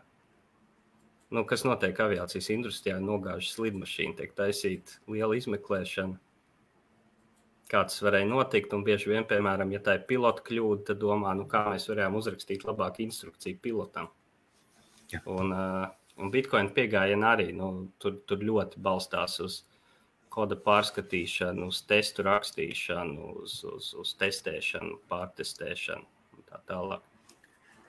Kas notiek aviācijas industrijā, nogāžas lidmašīna, tiek taisīt liela izmeklēšana, kā tas varēja notikt, un bieži vien, piemēram, ja tā ir pilota kļūda, tad domā, kā mēs varējām uzrakstīt labāku instrukciju pilotam. Ja. Un Bitcoin piegājiena arī, tur ļoti balstās uz koda pārskatīšanu, uz testu rakstīšanu, uz testēšanu, pārtestēšanu un tā tālāk.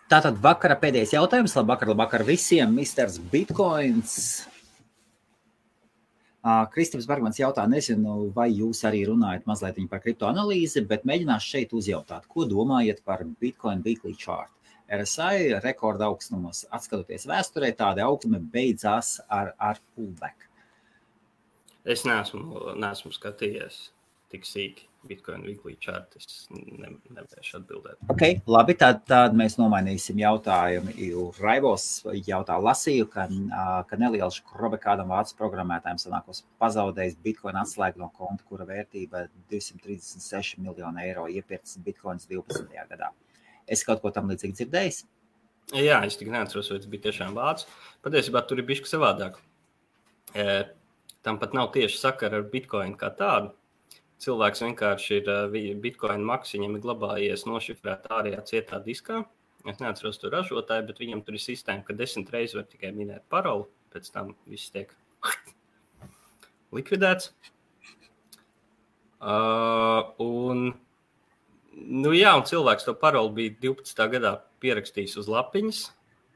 Tātad vakara pēdējais jautājums. Labvakar visiem, Misters Bitcoins. Kristaps Bergmans jautā, nezinu, vai jūs arī runājat mazliet par kriptoanalīzi, bet mēģināšu šeit uzjautāt, ko domājat par Bitcoin Weekly Chart. RSI rekorda augstumos, atskatoties vēsturē, tāda augstuma beidzās ar pullback. Es neesmu skatījies tik sīki, Bitcoin weekly chart, es nevēršu atbildēt. Ok, labi, tad mēs nomainīsim jautājumu. Raivos jautā lasīju, ka neliels krobe kādam vācu programmētājiem sanākos pazaudējis Bitcoin atslēgu no konta, kura vērtība 236 miljonu eiro iepirkts Bitcoins 12. gadā. Es kaut ko tam līdzīgi dzirdējis? Jā, es tik neatceros, vai tas bija tiešām vācu. Patiesībā tur ir bišķi savādāk. Tam pat nav tieši sakara ar Bitcoin kā tādu. Cilvēks vienkārši ir Bitcoin maks, viņam ir glabājies nošifrēt ārējā cietā diskā. Es neatceros to ražotāju, bet viņam tur ir sistēma, ka 10 reizes var tikai minēt paroli, pēc tam viss tiek likvidēts. Un cilvēks to paroli bija 12. gadā pierakstījis uz lapiņas,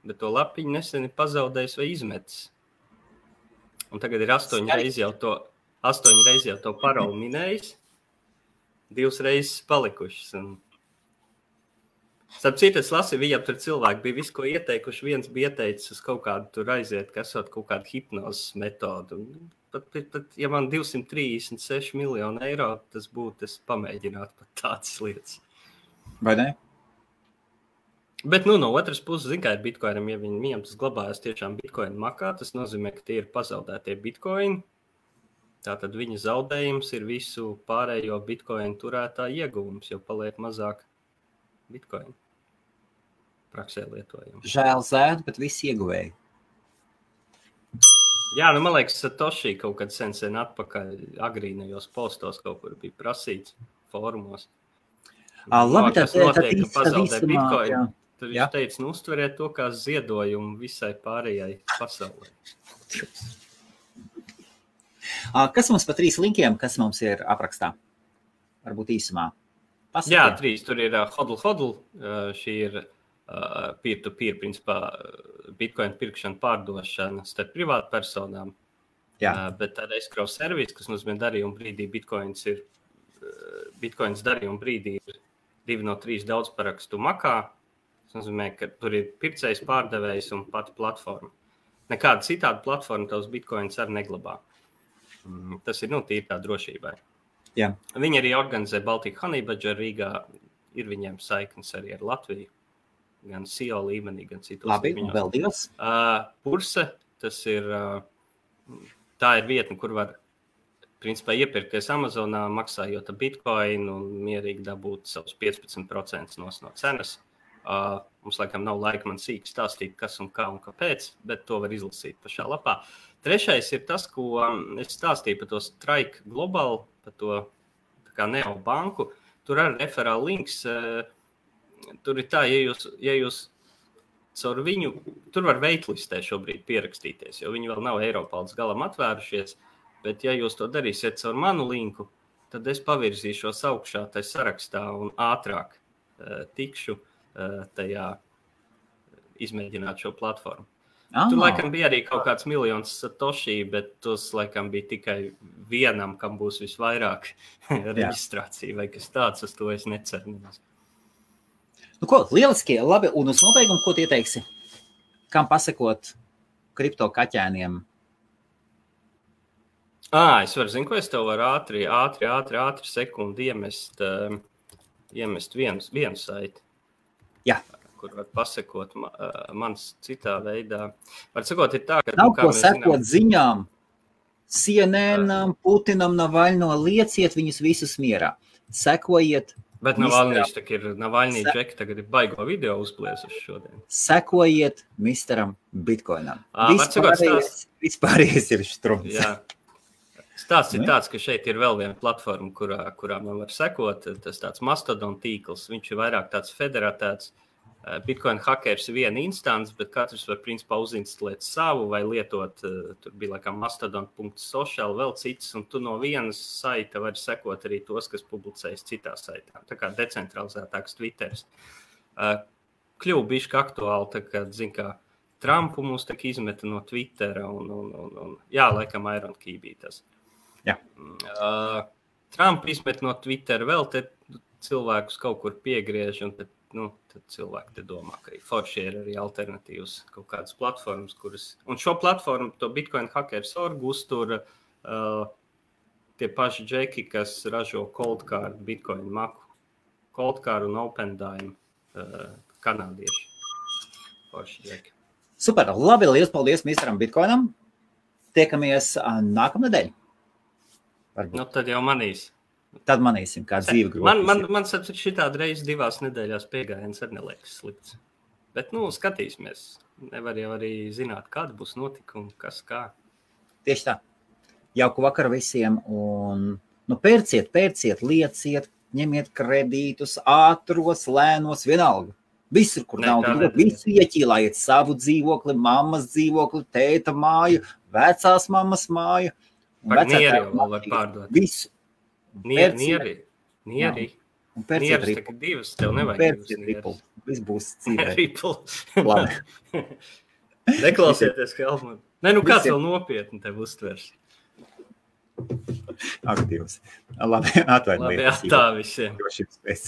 bet to lapiņu nesen ir pazaudējis vai izmetis. Un tagad ir 8 reizes jau to paroli minējis, 2 reizes palikušas. Starp citu, es lasīju, viņam tur cilvēki bija visu, ko ieteikuši. Viens bija ieteicis uz kaut kādu tur aiziet, kas esot kaut kādu hipnozes metodu. Pat, ja man 236 miljonu eiro, tas būtu, es pamēģinātu pat tādas lietas. Vai ne? Bet, no otras puses, zin, kā ir Bitcoinam, ja viņam tas glabājas tiešām Bitcoin makā, tas nozīmē, ka tie ir pazaudētie Bitcoin. Tātad viņa zaudējums ir visu pārējo Bitcoin turētā ieguvums, jo paliek mazāk Bitcoin praksē lietojam. Žēl zēd, bet visi ieguvēji. Jā, man liekas, Satoshi kaut kad sen atpakaļ agrīnajos postos kaut kur bija prasīts fórumos. Labi, tas notiek, ka pazaudē Bitcoin. Jā. Tur viņš teica, uztveriet to kā ziedojumu visai pārējai pasaulē. Kas mums pa 3 linkiem, kas mums ir aprakstā? Varbūt īsumā. Pasakiet. Jā, 3. Tur ir hodl. Šī ir peer-to-peer, principā, Bitcoin pirkšana, pārdošana starp privātu personām. Jā. Bet tāda escrow servis, kas nozīmē darījuma brīdī, Bitcoins darījuma brīdī ir 2 no 3 daudzparakstu makā. Tas nozīmē, ka tur ir pircējs, pārdevējs un pati platforma. Nekāda citāda platforma tavs Bitcoins arī neglabā. Tas ir, tīri tā drošībai. Jā. Viņi arī organizē Baltic Honey Badger Rīgā. Ir viņiem saiknes arī ar Latviju. Gan CEO līmenī, gan citos Labi, līmeņos. un vēl 2. Purse, tas ir, tā ir vietne, kur var, principā, iepirkties Amazonā, maksājot Bitcoin un mierīgi dabūt savus 15% no cenas. Mums, laikam, nav laika man sīk stāstīt, kas un kā un kāpēc, bet to var izlasīt pašā lapā. 3. ir tas, ko es stāstīju par to Strike Global, par to tā kā neobanku. Tur arī referāla links. Tur ir tā, ja jūs caur viņu, tur var waitlistē šobrīd pierakstīties, jo viņi vēl nav Eiropā līdz galam atvērušies, bet ja jūs to darīsiet caur manu linku, tad es pavirzīšos augšā tai sarakstā un ātrāk tikšu tajā izmēģināt šo platformu. Tur laikam bija arī kaut kāds miljons Satoshi, bet tos laikam bija tikai vienam, kam būs visvairāk reģistrācija vai kas tāds, uz to es neceru. Nu ko, lieliski, labi, un uz nobeigumu, ko tu ieteiksi? Kam pasakot kripto kaķēniem? Es varu, ko es tev varu ātri sekundi iemest vienu saiti. Jā. Kur var pasakot mans citā veidā. Var sakot, ir tā, ka... Nav ko sekot ziņām. CNN, Putinam, Navaļno, lieciet viņus visus mierā. Sekojiet. Bet Navaļnīši ir Navaļnī džeki, tagad ir baigo video uzpliesuši šodien. Sekojiet misteram Bitcoinam. Vispārējais ir štrums. Jā. Stāsts ir tāds, ka šeit ir vēl viena platforma, kurā man var sekot. Tas tāds Mastodon tīkls. Viņš ir vairāk tāds federatēts. Bitcoin hackers ir viena instance, bet katrs var principā uzinstalēt savu vai lietot, tur bija laikam mastodon.social, vēl cits, un tu no vienas saita vari sekot arī tos, kas publicējas citā saitā. Tā kā decentralizētāks Twitters. Kļuva bišķi aktuāli, tā kā, kā Trumpu mums tak izmeta no Twittera un laikam Iron Key bija tas. Jā. Trump izmet no Twittera vēl te cilvēkus kaut kur piegriež, un tad cilvēki te domā, ka forši ir arī alternatīvas kaut kādas platformas, kuras... Un šo platformu, to Bitcoin Hackers.org uztur tie paši džeki, kas ražo Cold Card, Bitcoin maku. Cold Card un OpenDime kanādieši. Paši džeki. Super, labi, liels paldies misteram Bitcoinam. Tiekamies nākamnedēļ. Nu, tad jau manīs. Tad manīsim, kā dzīve grūti. Man šitādi reiz 2 nedēļās piegājiens arī neliekas slikts. Bet, skatīsimies. Nevar jau arī zināt, kāda būs notikuma, kas kā. Tieši tā. Jauku vakaru visiem un pērciet, lieciet, ņemiet kredītus, ātros, lēnos, vienalga. Visur, kur nauda, visu ieķīlājiet savu dzīvokli, mammas dzīvokli, tēta māju, vecās mammas māju. Par nieri jau var pārdot. Visu. Nieri. Un pērciet ripu. Divas, tev nevajag divas ripu. Viss būs dzīvē. Ripu. Labi. Neklausieties, Helmut. Kāds vēl nopietni tev uztvers? Aktīvs. Labi, atvainojiet. Labi, tā visiem. Drošības pēc.